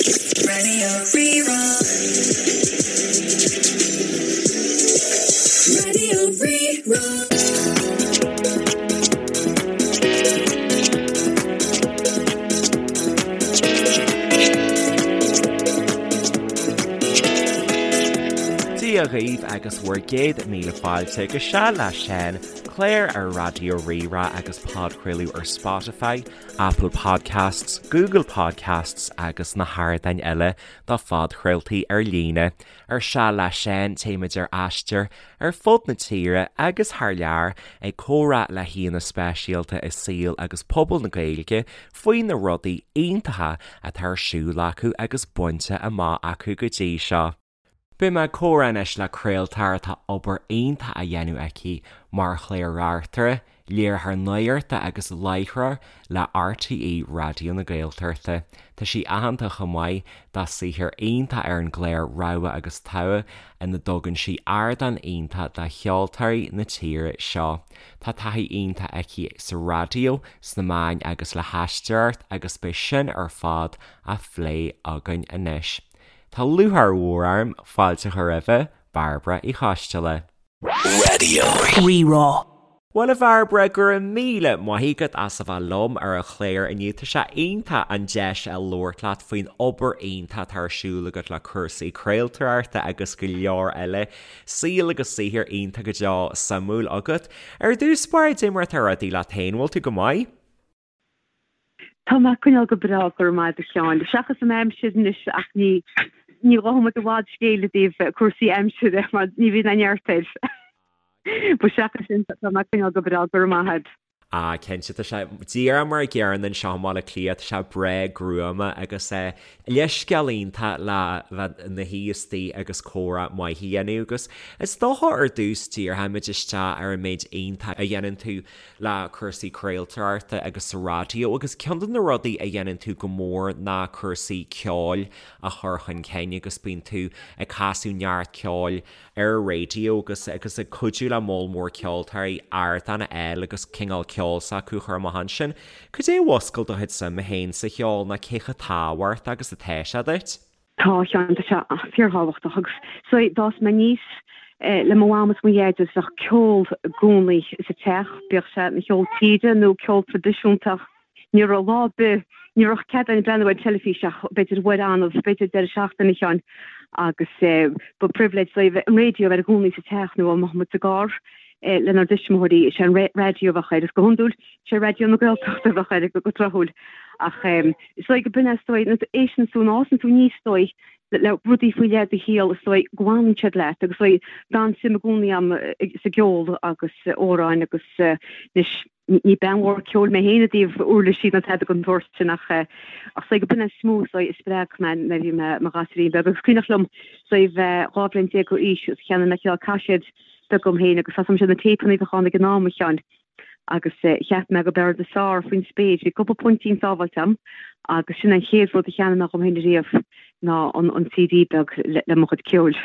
Radio Rí-Rá. Radio Rí-Rá. Dia dhaoibh agus bhur gcéad míle fáilte go Seal le Seán, clár ar Raidió Rí-Rá agus podchraoladh ar Spotify, Apple Podcasts, Google Podcasts agus na hardáin eile do phodchraoltaí ar líne. Ar Seal le Seán téimid ar aistear ar fud na tíre agus thar lear ag comhrá le haíonna speisialta i saol agus pobal na Gaeilge faoi na rudaí iontacha atá ar siúl acu agus bainte amach acu go dtí seo. Beidh mé ag comhrá anois le craoltóir atá obair iontach á dhéanamh aici mar chlár-reachtaire, léiritheoir nuachta agus láithreoir le RTÉ Raidió na Gaeltachta. Tá sí aitheanta chomh maith dá saothar iontach ar an gclár Rogha agus Togha ina dtugann sí ardán iontach do cheoltóirí na tíre seo. Tá taithí iontach aici sa raidió, sna meáin agus le haisteoireacht agus beidh sin ar fad á phlé againn anois. Tá lúcháir mhór orm fáilte a chur roimhe, Bairbre Uí Choisteala. Radio Rí-Rá. Bhuel a Bhairbre, go raibh míle maith agat as a bheith liom ar an chlár inniu. Tá sé iontach an deis a labhairt leat faoin obair iontach atá ar siúl agat le cúrsaí craoltóireachta agus go leor eile. Saol agus saothar iontach go deo suimiúil agat. Ar dtús báire, cad é mar atá rudaí leat féin, bhfuil tú go maith? Tá mé ag coinneáil go breá, go raibh maith agat a Sheáin. Seachas an aimsir anois ach ní ní gheobhaidh muid i bhfad scéil i dtaobh cúrsaí aimsire mar ní bhíonn aon neart air. But seachas sin tá mé ag coinneáil go breá, go raibh maith agat. Ah cinnte, tá sé díreach mar a gcéanna anseo i mBaile Átha Cliath, tá sé breá gruama agus eh leithscéal iontach le bheith ina shuí istigh agus comhrá maith a dhéanamh agus is dócha ar dtús díreoimid isteach ar an méid iontach a dhéanann tú le cúrsaí craoltóireachta agus sa raidió agus ceann de na rudaí a dhéanann tú go mór ná cúrsaí ceoil a chur chun cinn agus bíonn tú ag casadh neart ceoil ar an raidió agus agus ag cuidiú le moll mór ceoltóirí ardán a fháil agus cineál ceol s'acu a chur amach ansin. Cad é a mhúscail do chuid suime féin sa cheol nó cé chomh tábhachtach agus atá sé duit? Tá, a Sheáin, tá sé fíorthábhachtach agus so d'fhás mé aníos le mo mham is mo dhaid agus bheadh ceol i gcónaí sa teach, bíodh sé ina cheol tíre nó ceol traidisiúnta ach ní raibh lá ar bith, ní raibh cead againn breathnú ar an teilifís ach b'fhéidir uair annamh, b'fhéidir deireadh seachtaine, a Sheáin, agus ba privilege dóibh an raidió a bheith i gcónaí sa teach nó dá mbeadh muid sa gcarr lenár dtuismitheoirí, is é an raidió a bheadh air agus go hiondúil sé Raidió na Gaeltachta a bheadh air go tráthúil. Ach is dóigh go b'in é is dóigh, nuair a éisteann tú, nuair a fhásann tú aníos is dóigh le rudaí faoi leith i do shaol is dóigh go bhfanann siad leat agus is dóigh d'fhan suim i gcónaí agam sa gceol agus amhráin agus anois ní bean mhór ceoil mé féin i dtaobh uirlisí ná tada den tsórt sin ach ach is dóigh go b'in é is mó is dóigh a spreag mé nuair a bhí mé i mo ghasúirín beag agus cuimhneach liom is dóigh bheith 12 bhliain d'aois agus cheannaigh mé cineál caiséad beag dom féin agus tá 's agam na téipeanna a bheadh ann ag an am a Sheáin. agus cheap mé go b'fhearr rud is fearr faoin spéir. Bhí cúpla puintín sábháilte agam agus sin an chéad rud a cheannaigh mé dhom féin ariamh ná an CD beag le mo chuid ceoil.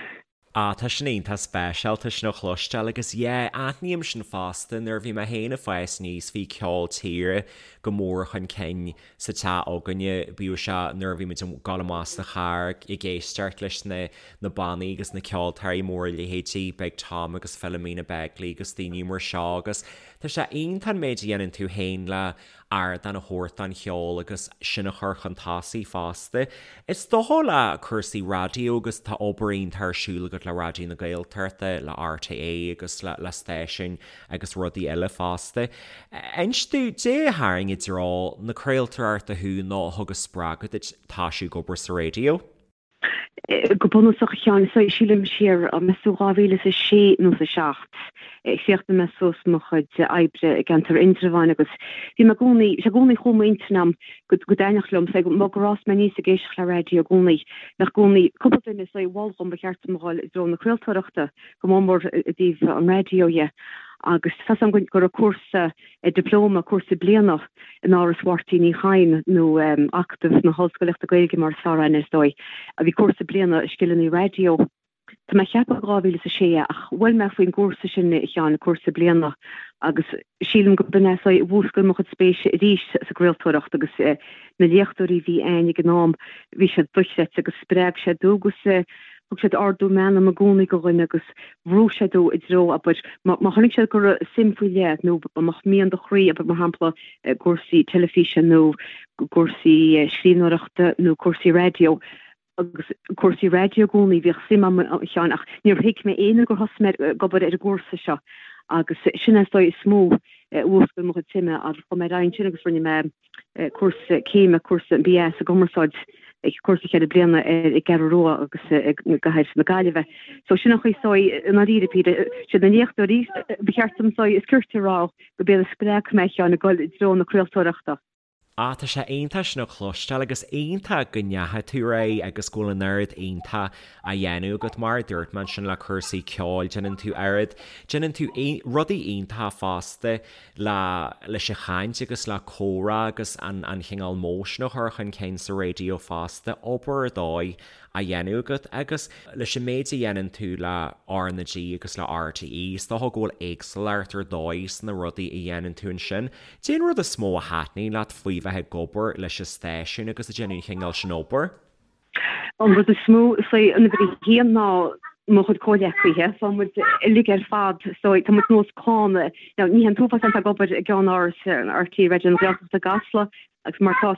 Ah, tá sin iontach speisialta sin a chloisteáil agus yeah, aithním sin fosta, nuair a bhí mé féin ag fás aníos bhí ceol tíre go mór chun cinn sa teach againne, bíodh sé nuair a bhí muid ag dul amach sa charr ag éisteacht leis na na bannaí agus na ceoltóirí móra leithéidí Big Tom agus Philomena Begley agus daoine mar seo agus tá sé iontach an méid a dhéanann tú féin le ardán a thabhairt don cheol agus sin a chur chun tosaigh fosta. Is dócha le cúrsaí raidió agus tá obair iontach ar siúl agat le Raidió na Gaeltachta, le RTÉ agus le le stáisiúin agus rudaí eile fosta. Inis domh, caidé a tharraing i dtreo na craoltóireachta thú nó a thug an spreagadh duit toisiú ag obair sa raidió? Go bunúsach, a Sheáin, so sílim siar, meas tú 2006 nó 7, chríochnaigh mé suas mo chuid oibre i gceantar Indreabháin agus bhí mé i gcónaí, sé i gcónaí chuaigh m'intinn a'm go dtaitneodh liom, so mar gur fhás mé aníos ag éisteacht le raidió i gcónaí, bheadh i gcónaí cúpla duine so a mhol dhom ba cheart dom a dhul i dtreo na craoltóireachta, go mór mór i dtaobh an raidió dhe. Agus tá 's a'm go raibh cúrsa dioplóma, cúrsa bliana in Áras Mháirtín Uí Chadhain nó Acadamh na hOllscolaíochta Gaeilge mar is fearr aithne is dóigh. Bhí cúrsa bliana i scileanna raidió. Tá mé ag ceapadh 2006 é ach bhuail mé faoin gcúrsa sin a Sheáin, cúrsa bliana, agus sílim go b'in é is dóigh a mhúscail mo chuid spéise arís sa gcraoltóireacht agus na léachtóirí a bhí a'ainn ag an am, bhí siad dochreidte agus spreag siad tú agus thug siad ardú meanma i gcónaí go dhuine agus bhrúigh siad tú i dtreo, abair, má chonaic siad go raibh suim faoi leith nó má mbeadh mian do chroí, abair, mar shampla, i gcúrsaí teilifíse nó cúrsaí scríbhneoireachta nó cúrsaí raidió, agus cúrsaí raidió i gcónaí, bhíodh suim a'm a Sheáin ach níor thuig mé é nó gur thosaigh mé ag obair ar an gcúrsa seo agus sin é is dóigh is mó a mhúscail mo chuid suime agus chuaigh mé ar aghaidh ansin agus rinne mé cúrsa céime, cúrsa an BA sa gcumarsáid, cúrsa cheithre bliana ar an gCeathrú Rua agus i gcathair na Gaillimhe. So sin an chaoi is dóigh i ndáiríre píre, siad na léachtóirí ba cheart dom is dóigh is cirte a rá go b'iad a spreag mé a Sheáin ag dul i dtreo na craoltóireachta. Ah, tá sé iontach sin a chloisteáil agus iontach go ndeachaigh tú ar aghaidh agus go bhfuil an oiread iontach á dhéanamh agat. Mar a dúirt mé ansin le cúrsaí ceoil, déanann tú oiread, déanann tú rudaí iontacha fosta le leis an chaint agus le comhrá agus an an chineál modh sin a chur chun cinn sa raidió fosta, obair ar dóigh á dhéanamh agat agus leis an méid a dhéanann tú le R na G agus le RTÉ, is dócha go bhfuil éagsúlacht ar dóigh sna rudaí a dhéanann tú ansin. Cén rud is mó a thaitníonn leat faoi bheith ag obair leis an stáisiún agus ag déanamh an chineál sin obair? An rud is mó, is é an uimhir a haon ná mo chuid comhghleacaithe. Tá muid uilig ar fad, so tá muid nós clann. Now, ní hé an t-uafás atá ag obair i gceannáras RTÉ Raidió na Gaeltachta i gCasla agus mar tá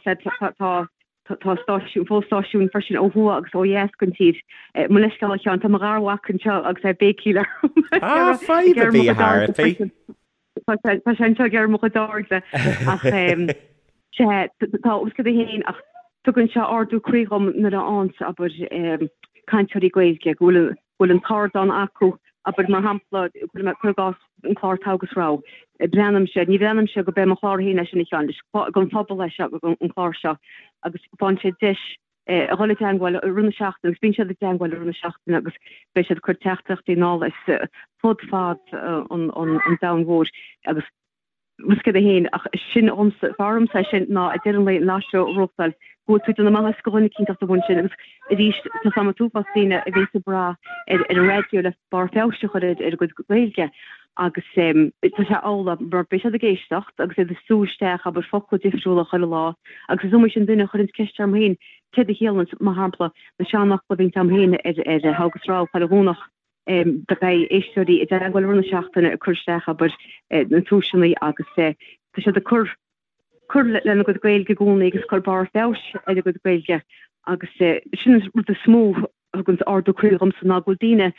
tá Tá stáisiún, fo-stáisiúin freisin ó thuaidh agus ó dheas den tír. Mo leithscéal a Sheáin, tá mo gharmhac anseo agus é ag béicíl orm. Ah, fadhb ar bith a Thairfí. Tá sé anseo ag iarraidh mo chuid airde ach sea, tá os cionn féin ach tugann sé ardú croí dhom nuair a fhaigheanns, abair, cainteoirí Gaeilge go bhfuil bhfuil an t-ardán acu, abair, mar shampla, cuir i gcás an clár Togha agus Rogha. Breathnaímse, ní bhreathnaímse go b'é mo chlár féin é sin a Sheáin, is don phobal é seo, an clár seo, agus faigheann siad deis a dhul i dteangmháil i rith na seachtaine agus bíonn siad i dteangmháil i rith na seachtaine agus beidh siad ag cur teachtaireachtaí anall as fud fad an domhain mhóir agus Rud céad 1, ach sin dhomsa, fearr dhomsa é sin ná ag deireadh an lae an live show a reáchtáil, go bhfuil tú ag déanamh maitheas do dhuine eicínt amháin sin agus arís tá 's a'm an t-uafás daoine a bhíonns ag brath ar an raidió le barr feabhais a chur ar a gcuid Gaeilge agus tá sé amhlaidh mar beidh siad ag éisteacht agus iad ag sú isteach abair focla difriúla chuile lá agus is iomaí sin duine a chuireanns ceist orm féin céard a chiallaíonns mar shampla na seanfhocla a bhíonns a'm féin ar ar Togha agus Rogha chuile Dhomhnach. Beidh éisteoirí i dteagmháil i rith na seachtaine ag cur isteach, abair, na tomhaiseanna agus tá siad ag cur cur lena gcuid Gaeilge i gcónaí agus cur barr feabhais ar a gcuid Gaeilge agus sin an rud is mó a thugann ardú croí dhomsa ná go bhfuil daoine,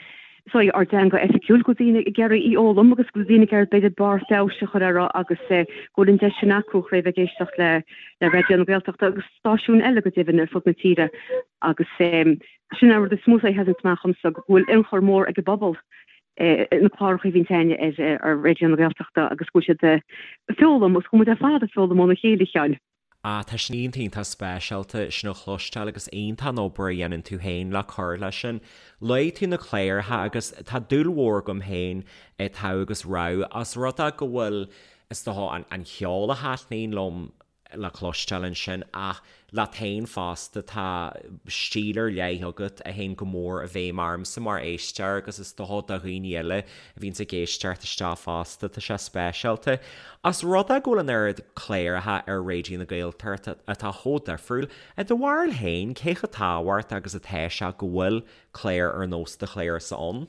sorry, ár dteanga oifigiúil, go bhfuil daoine ag iarraidh í fhoghlaim agus go bhfuil daoine ag iarraidh b'fhéidir barr feabhais a chur uirthi agus go bhfuil an deis sin acu chun bheith ag éisteacht le le Raidió na Gaeltachta agus stáisiúin eile go deimhin ar fud na tíre agus Sin an rud is mó a sheasann amach dhomsa, go bhfuil ionchur mór ag an bpobal na cláracha a bhíonn againne ar Raidió na Gaeltachta agus go bhfuil siad ag foghlaim agus go bhfuil muid ar fad ag foghlaim óna chéile, a Sheáin. Ah, tá sin iontach iontach speisialta sin a chloisteáil agus iontach an obair a dhéanann tú féin le cur leis sin. Luaigh tú na cláracha agus tá dúil mhór agam féin i Togha agus Rogha os rud é go bhfuil, is dócha, an ceol a thaitníonn liom le cloisteáil ansin ach leat féin fosta tá stíl ar leith agat a théann go mór i bhfeidhm ormsa mar éisteoir agus is dócha do dhaoine eile a bhíonns ag éisteacht isteach fosta, tá sé speisialta. Os rud é go bhfuil an oiread cláracha ar Raidió na Gaeltachta atá chomh difriúil, i do bharúil féin, cé chomh tábhachtach agus atá sé go bhfuil cláir ar nós do chlársa ann?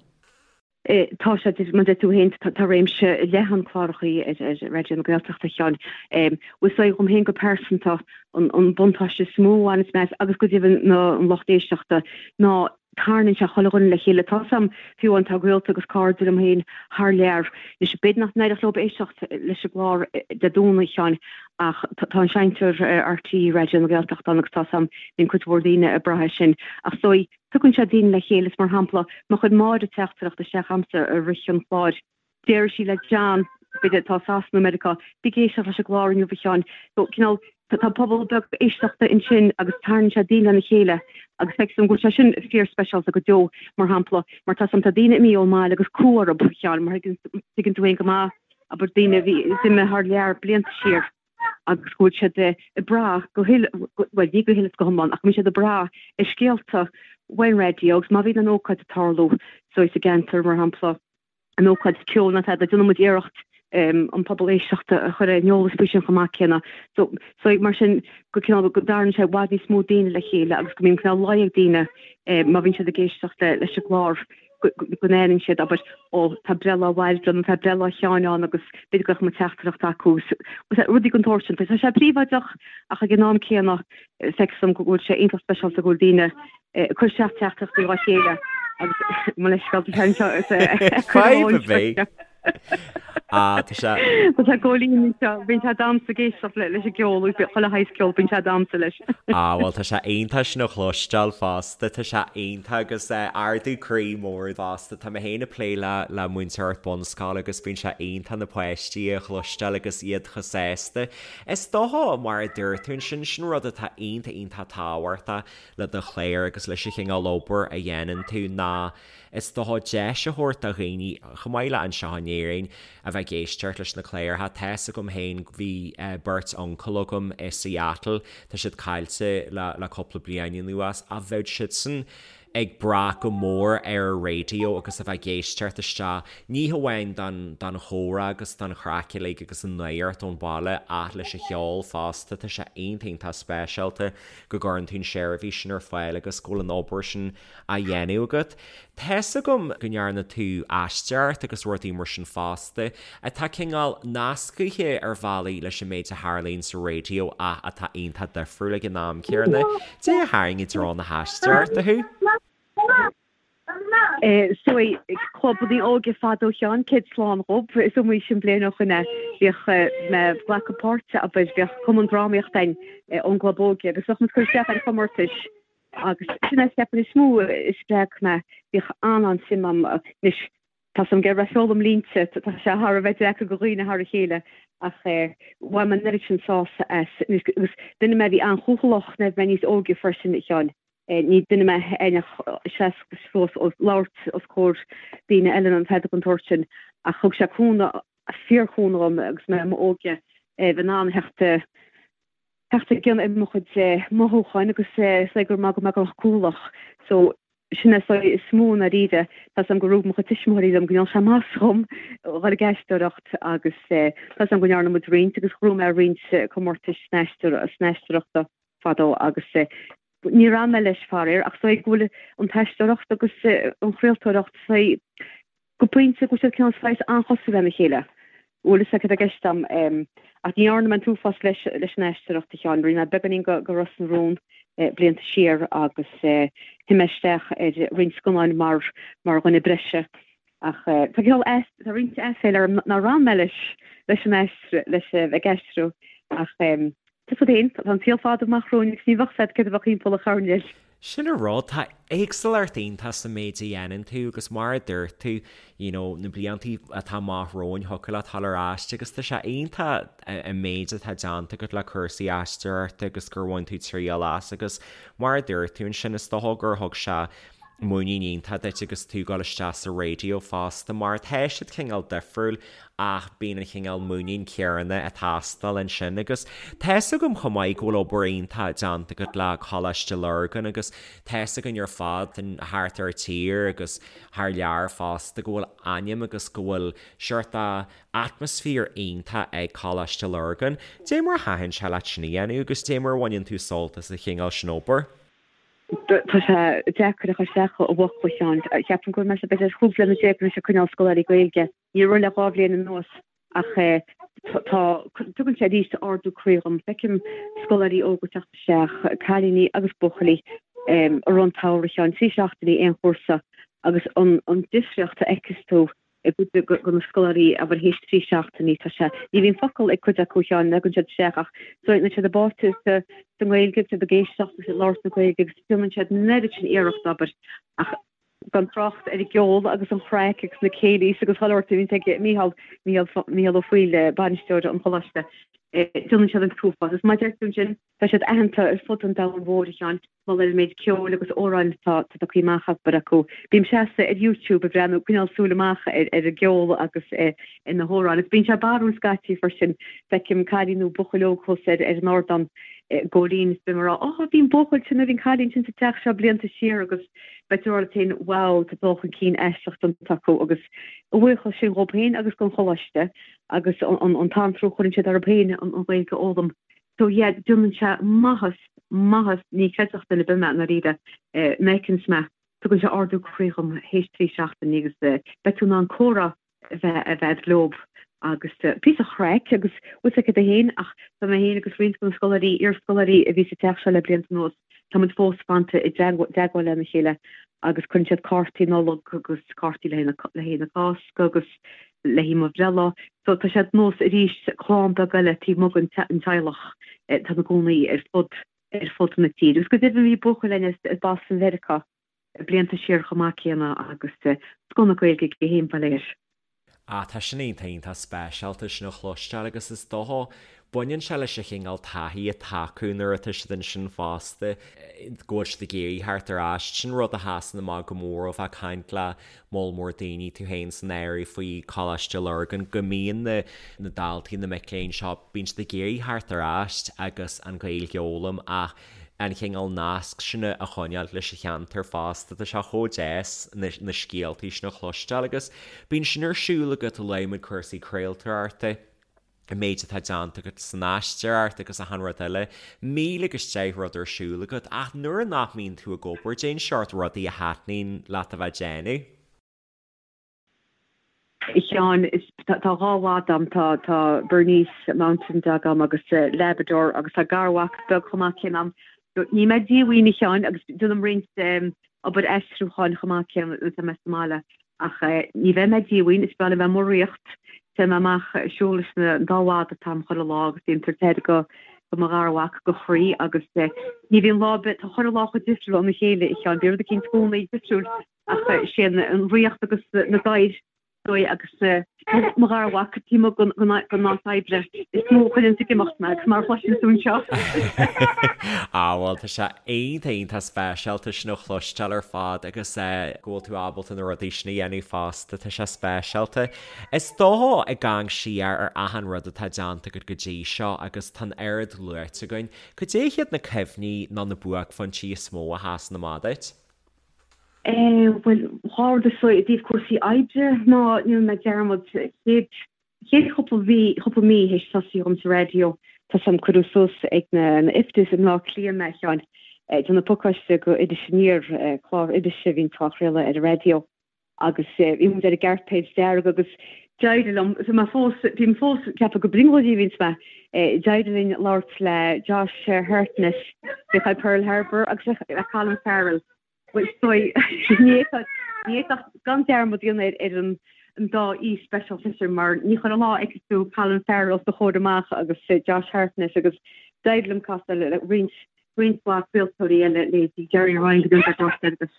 Tá sé, mar a deir tú féin, tá réimse leathan clárachaí ar Raidió na Gaeltachta, a Sheáin. Bhuel, is dóigh dhom féin go pearsanta, an buntáiste is mó a bhaineas mé as, agus go deimhin an lucht éisteachta, ná tarraingíonn sé chuile dhuine le chéile. Tá 's a'm, fiú amháin, tá gaolta agus cairde liom féin thar lear. Anois, b'fhéidir nach n-éireodh leo éisteacht leis an gclár Dé Domhnaigh, a Sheáin, ach tá an seinnteoir RTÉ Raidió na Gaeltachta ann agus tá 's a'm, bíonn cuid mhór daoine ag brath air sin. Ach is dóigh, Tugann sé daoine le chéile is mar shampla, má chuir Máire teachtaireacht isteach a'msa i rith an chláir, déarfaidh sí le John, b'fhéidir atá i Sasana nó Meiriceá, bí ag éisteacht leis an gclár inniu a Sheáin. So, cineál, tá pobal beag éisteachta ansin agus tarraingíonn sé daoine lena chéile agus feictear dom go bhfuil sé sin fíor-speisialta go deo, mar shampla, mar tá 's a'm, tá daoine imithe ón mbaile agus cumha orthu, a Sheáin, mar tuigeann tú féin go maith, abair, daoine a bhí imithe thar lear blianta siar. agus go bhfuil siad ag brath go huile, bhuel ní go huile is go hiomlán, ach go mbíonn siad ag brath ar scéalta. Uain raidió agus má bhíonn an ócáid ag tarlú so sa gceantar, mar shampla, an ócáid ceoil nó tada, déanann muid iarracht an pobal éisteachta a chur ar an eolas faoi sin chomh maith céanna. So, so mar sin go cineál go dtarraingíonn sé i bhfad níos mó daoine le chéile agus go mbíonn cineál luí ag daoine má bhíonn siad ag éisteacht leis an gclár go n-aithníonn siad, abair, ó tá breithlá Bhairbre nó tá breithlá Sheáin ann agus b'fhéidir go mbeadh mo teachtaireacht acu. Rudaí den tsórt sin. Tá sé príobháideach ach ag an am céanna feictear dom go bhfuil sé iontach speisialta go bhfuil daoine ag cur isteach teachtaireachtaí dá chéile agus mo leithscéal tá sé anseo is Fadhb ar bith. Ah, tá sé. Tá sé Góilín anseo, bíonn sé ag damhsa ag éisteacht leis an gceol, chuile shaghas ceol, bíonn sé ag damhsa leis. Ah, bhuel tá sé iontach sin a chloisteáil fosta, tá sé iontach agus ardú croí mór fosta. Tá mé féin ag plé le le múinteoireacht bunscoile agus bíonn sé iontach na páistí a chloisteáil agus iad chomh sásta. Is dócha, mar a dúirt tú ansin, sin rud atá iontach iontach tábhachtach le do chlár agus leis an chineál obair a dhéanann tú ná is dócha deis a thabhairt do dhaoine, chomh maith le anseo in Éirinn, a bheith ag éisteacht leis na cláracha. Tá's agam féin, bhí beirt uncail agam i Seattle, tá siad caillte le le cúpla bliain anuas, ach bheadh siadsan ag brath go mór ar an raidió agus a bheith ag éisteacht isteach, ní hamháin don don chomhrá agus don chraic uilig agus an nuacht ón bhaile ach leis an cheol fosta. Tá sé iontach iontach speisialta go gcuireann tú an seirbhís sin ar fáil agus go bhfuil an obair sin á dhéanamh agat. Tá's agam go ndearna tú aisteoireacht agus rudaí mar sin fosta, atá cineál nascaithe ar bhealaí leis an méid a tharlaíonn sa raidió ach atá iontach difriúil ag an am céanna. Dé a tharraing i dtreo na haisteoireachta thú? So, clubanna óige fadó a Sheáin, céad slán dhób, is iomaí sin bliain ó shoin é, bhíodh mé ag glacadh páirte, abair, bhíodh cumann drámaíochta againn ón gclub óige agus bheadh muid ag cur isteach ar chomórtais agus sin é ceapaim is mó a spreag mé, bhíodh an-an-suim a'm, anois tá 's a'm go raibh foghlaim línte, tá sé thar a bheith deacair do dhaoine thar a chéile ach bhain mé an oiread sin sásamh as, anois agus duine mé a bhí an-chúthaileach nuair a bhí mé níos óige freisin a Sheáin. Ní duine mé a thaitneodh seasamh suas ag labhairt os comhair daoine eile nó tada den tsórt sin ach thug sé cúnamh, fíorchúnamh dhom agus mé i m'óige bheith in ann theacht theacht i gcionn ar mo chuid mothúcháin agus is dóigh gur maith go mbeadh go cúthaileach. So sin é is dóigh is mó i ndáiríre. Tá 's a'm gur rug mo chuid tuismitheoirí liom go ndearna sé maitheas dhom dhul ag aisteoireacht agus tá 's a'm go ndearna muid roinnt agus ghnóthaigh mé roinnt comórtais san aisteoireachta fadó agus níor fhan mé leis faraor ach is dóigh go bhfuil an t-aisteoireacht agus an chraoltóireacht is dóigh go pointe go bhfuil siad cineál saghas an-chosúil lena chéile. Bhfuil fhios agat cad tá i gceist a'm. Ach ní dhearna mé an t-uafás leis leis an aisteoireacht a Sheáin. Rinne mé beagáinín go go Ros na Rún blianta siar agus shuigh mé isteach ar roinnt scannáin mar mar dhuine breise. Ach tá cineál tá roinnt aiféala orm nár fhan mé leis leis an aistriú leis ag aistriú ach tá 'fhios agat féin, tá an saol fada amach romhainn agus ní bheadh 'fhios agat céard a bheadh thimpeall an choirnéil. Sin an rud, tá éagsúlacht iontach sa méid a dhéanann tú agus mar a dúirt tú, you know, na blianta atá amach romhainn thiocfadh leat dul ar ais agus tá sé iontach an méid atá déanta agat le cúrsaí aisteoireachta agus gur bhain tú triail as agus mar a dúirt tú ansin is dócha gur thug sé muinín iontach duit agus tú ag dul isteach sa raidió fosta mar tá siad cineál difriúil ach bíonn an chineál muinín céanna ag teastáil ansin agus tá's agam chomh maith go bhfuil obair iontach déanta agat le Coláiste Lurgan agus tá's againn ar fad thart ar tír agus thar lear fosta go bhfuil ainm agus go bhfuil seort atmaisféar iontach ag Coláiste Lurgan. Dé mar a thaitin sé leat sin a dhéanamh agus dé mar a bhaineann tú sult as an chineál sin obair? Tá sé deacair a chur isteach i bhfocla, a Sheáin. Ceapaim go bhfuil mé b'fhéidir 15 bliana anois ag coinneáil scoláirí Gaeilge. Ní raibh le 2 bhliain anuas ach tá, tugann sé arís ardú croí dhom. Feicim scoláirí óga teacht isteach, cailíní agus buachaillí, i rith an tsamhraidh, a Sheáin, 3 seachtainí aon chúrsa agus an difríocht a fheiceas tú i gcuid de na scoláirí, abair, théis 3 seachtainí, tá sé, ní bhíonn focal ag cuid acu, a Sheáin, nuair a thagann siad isteach ach níl siad báite sa nGaeilge, siad ag éisteacht agus ag labhairt na Gaeilge agus déanann siad an oiread sin iarracht, abair, ach gan trácht ar an gceol agus an chraic agus na céilís agus chuile shórt a bhíonn ag Mícheál, Mícheál, Mícheál Ó Foighil, bainisteoir an choláiste, déanann siad an t-uafás. Is mar a deir tú ansin, tá siad aitheanta ar fud an domhain mhóir, a Sheáin, mar gheall ar an méid ceoil agus amhráin atá tugtha amach abair acu. Bím seasta ar YouTube ag breathnú, coinneáil súil amach ar ar an gceol agus ar na hamhráin. Agus bíonn sé barrúil scaití freisin, feicim cailín nó buachaill óg thuas ar ar an ardán. I gcóilín is beidh mé ag rá, oh bhí an buachaill sin nó bhí an cailín sin sa teach seo blianta siar agus beidh tú ag rá leat féin wow tá dul chun cinn aisteach déanta acu agus a bhuíochas sin dhóibh féin agus don choláiste agus an t-anró a chuireann siad orthu féin an Ghaeilge a fhoghlaim. So yeah déanann sé maitheas, maitheas, ní chreidfeadh duine ar bith mé i ndáiríre, nuair a fheiceanns mé, tugann sé ardú croí dhom théis 3 seachtainí agus beidh tú in ann comhrá a bheith a bheith agat leob agus píosa chraic agus bhfuil fhios agat féin ach tá mé féin agus roinnt de na scoláirí, iarscoláirí a bhí sa teach seo le blianta anuas, tá muid fós fanta i dteagmháil lena chéile agus cuireann siad cártaí Nollag agus cártaí le haghaidh na Cásca agus le haghaidh mo bhreithlá. So tá siad nós arís clann beag eile taobh amuigh den teaghlach atá ina gcónaí ar fud ar fud na tíre. Agus go deimhin bhí buachaill againn as Boston Mheiriceá blianta siar chomh maith céanna agus scoth na Gaeilge aige féin ba léir. Ah, tá sin iontach iontach speisialta sin a chloisteáil agus is dócha, baineann sé leis an chineál taithí atá acu nuair atá siad ansin fosta, go bhfuil siad ag iarraidh theacht ar ais. Sin rud a sheasann amach go mór ó bheith ag caint le moll mór daoine, tú féin san áireamh, faoi Choláiste Lurgan, go mbíonn na na daltaí, na mic léinn seo, bíonn siad ag iarraidh theacht ar ais agus an Ghaeilge a fhoghlaim ach an chineál nasc sin a choinneáil leis an cheantar fosta. Tá sé chomh deas na scéaltaí sin a chloisteáil agus bíonn sin ar siúl agat, luaigh muid cúrsaí craoltóireachta, an méid atá déanta agat san aisteoireacht agus achan rud eile. 1000 agus 10 rud ar siúl agat ach nuair nach mbíonn tú ag obair, cén seort rudaí a thaitníonn leat a bheith ag déanamh. A Sheáin, tá dhá mhadadh agam, tá tá Bernese Mountain Dog agam agus Labrador agus tá garmhac beag chomh maith céanna agam. Ní mé díomhaoin a Sheáin agus déanaim roinnt obair aistriúcháin chomh maith céanna nuair atá mé sa mbaile ach ní bheidh mé díomhaoin, is breá liom bheith amuigh ag rith, téann mé amach ag siúl leis an dá mhadadh atá agam chuile lá agus bím ag tabhairt aire go do mo gharmhac go chroí agus ní bhíonn lá ar bith, tá chuile lá chomh difriúil óna chéile a Sheáin, bíonn rud eicínt i gcónaí difriúil. Ach sé an ríocht agus na gadhair dóigh agus mo gharmhac taobh amuigh den áit oibre is mó a chuireanns ag imeacht mé agus mar a chloiseann tú anseo. Á bhuel tá sé iontach iontach speisialta sin a chloisteáil ar fad agus go bhfuil tú ábalta na rudaí sin a dhéanamh fosta, tá sé speisialta. Is dócha ag amharc siar ar achan rud atá déanta agat go dtí seo agus tá an oiread luaite againn, cad é hiad na cuimhní nó na buaicphointí is mó a sheasann amach duit? Bhuel, dhá rud is dóigh i dtaobh cúrsaí oibre ná ní dhéanfaidh mé dearmad chéad chéad chúpla mhí chúpla mí théis tosaí dhom sa raidió tá 's a'm cuireadh suas ag na na IFTAs i mBleá Cliath mé a Sheáin ag déanamh pacáiste go Iris Aniar clár irise a bhíonn á chraoladh ar an raidió agus bhí muid ar an gcairpéad dearg agus d'éirigh liom bhí mé fós bím fós ag ceapadh gur brionglóidí a bhíonns mé d'éirigh linn labhairt le Josh Hartnett bhí ag Pearl Harbor agus le Colin Farrell Bhuel, is dóigh, ní fhéadfadh gan dearmad a dhéanamh ar an dá aoi speisialta sin mar ní chuile lá a fheicfidh tú Colin Farrell os do chomhair amach agus Josh Hartnett agus d'éirigh liom casadh le roinnt roinnt mhaith craoltóirí eile, leithéidí Gerry Ryan go dtí an agus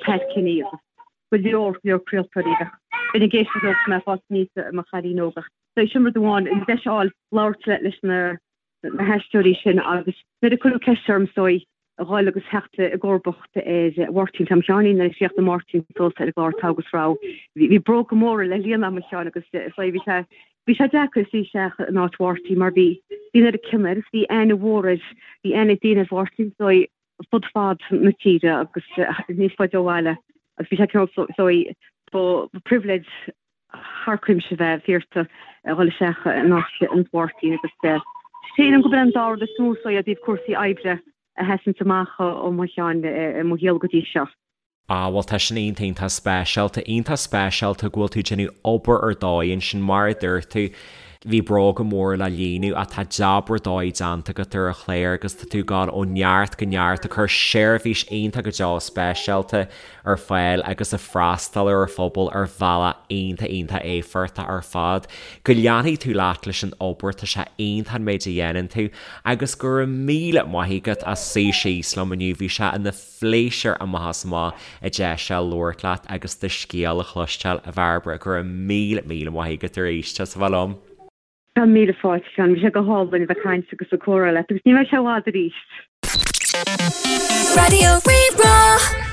Pat Kenny agus go leor leor craoltóirí a bheinn ag éisteacht leo mé ag fás aníos i mo chailín óg. So sin rud amháin, an deis a fháil labhairt leis na na haisteoirí sin agus nuair a cuireadh ceist orm is dóigh a dhul agus theacht i gcomharbacht ar Mháirtín Tom Sheáinín nuair a chríochnaigh Máirtín suas ar an gclár Togha agus Rogha. Bhí bróga móra le líonadh agam a Sheáin agus is dóigh bhí sé bhí sé deacair suí isteach in áit Mháirtín mar bhí bhí an oiread cion air agus bhí aithne mhór air bhí aithne ag daoine ar Mháirtín is dóigh fud fad na tíre agus níos faide ó bhaile agus bhí sé cineál is dóigh ba pribhléid thar cuimse bheith iarrta a dhul isteach in áit Mháirtín agus sílim gurb é an dá rud is mó is dóigh i dtaobh cúrsaí oibre a sheasanns amach ó mo cheann i mo shaol go dtí seo. Ah bhuel tá sin iontach iontach speisialta, iontach speisialta go bhfuil tú ag déanamh obair ar dóigh ansin mar a dúirt tú, bhí bróga móra le líonadh ach tá jab ar dóigh déanta agat ar an chlár agus tá tú ag gabháil ó neart go neart ag cur seirbhís iontach go deo speisialta ar fáil agus ag freastal ar an phobal ar bhealach iontach iontach éifeachtach ar fad. Go leanfaidh tú leat leis an obair, tá sé iontach an méid a dhéanann tú agus go raibh míle maith agat as suí síos liom inniu, bhí sé ina phléisiúr amach is amach an deis seo labhairt leat agus do scéal a chloisteáil, a Bhairbre, go raibh míle míle maith agat arís as a bheith liom. Tá míle fáilte, a Sheáin. Bhí sé go hálainn a bheith ag caint agus ag comhrá leat agus ní bheidh sé i bhfad arís. Raidió Rí-Rá.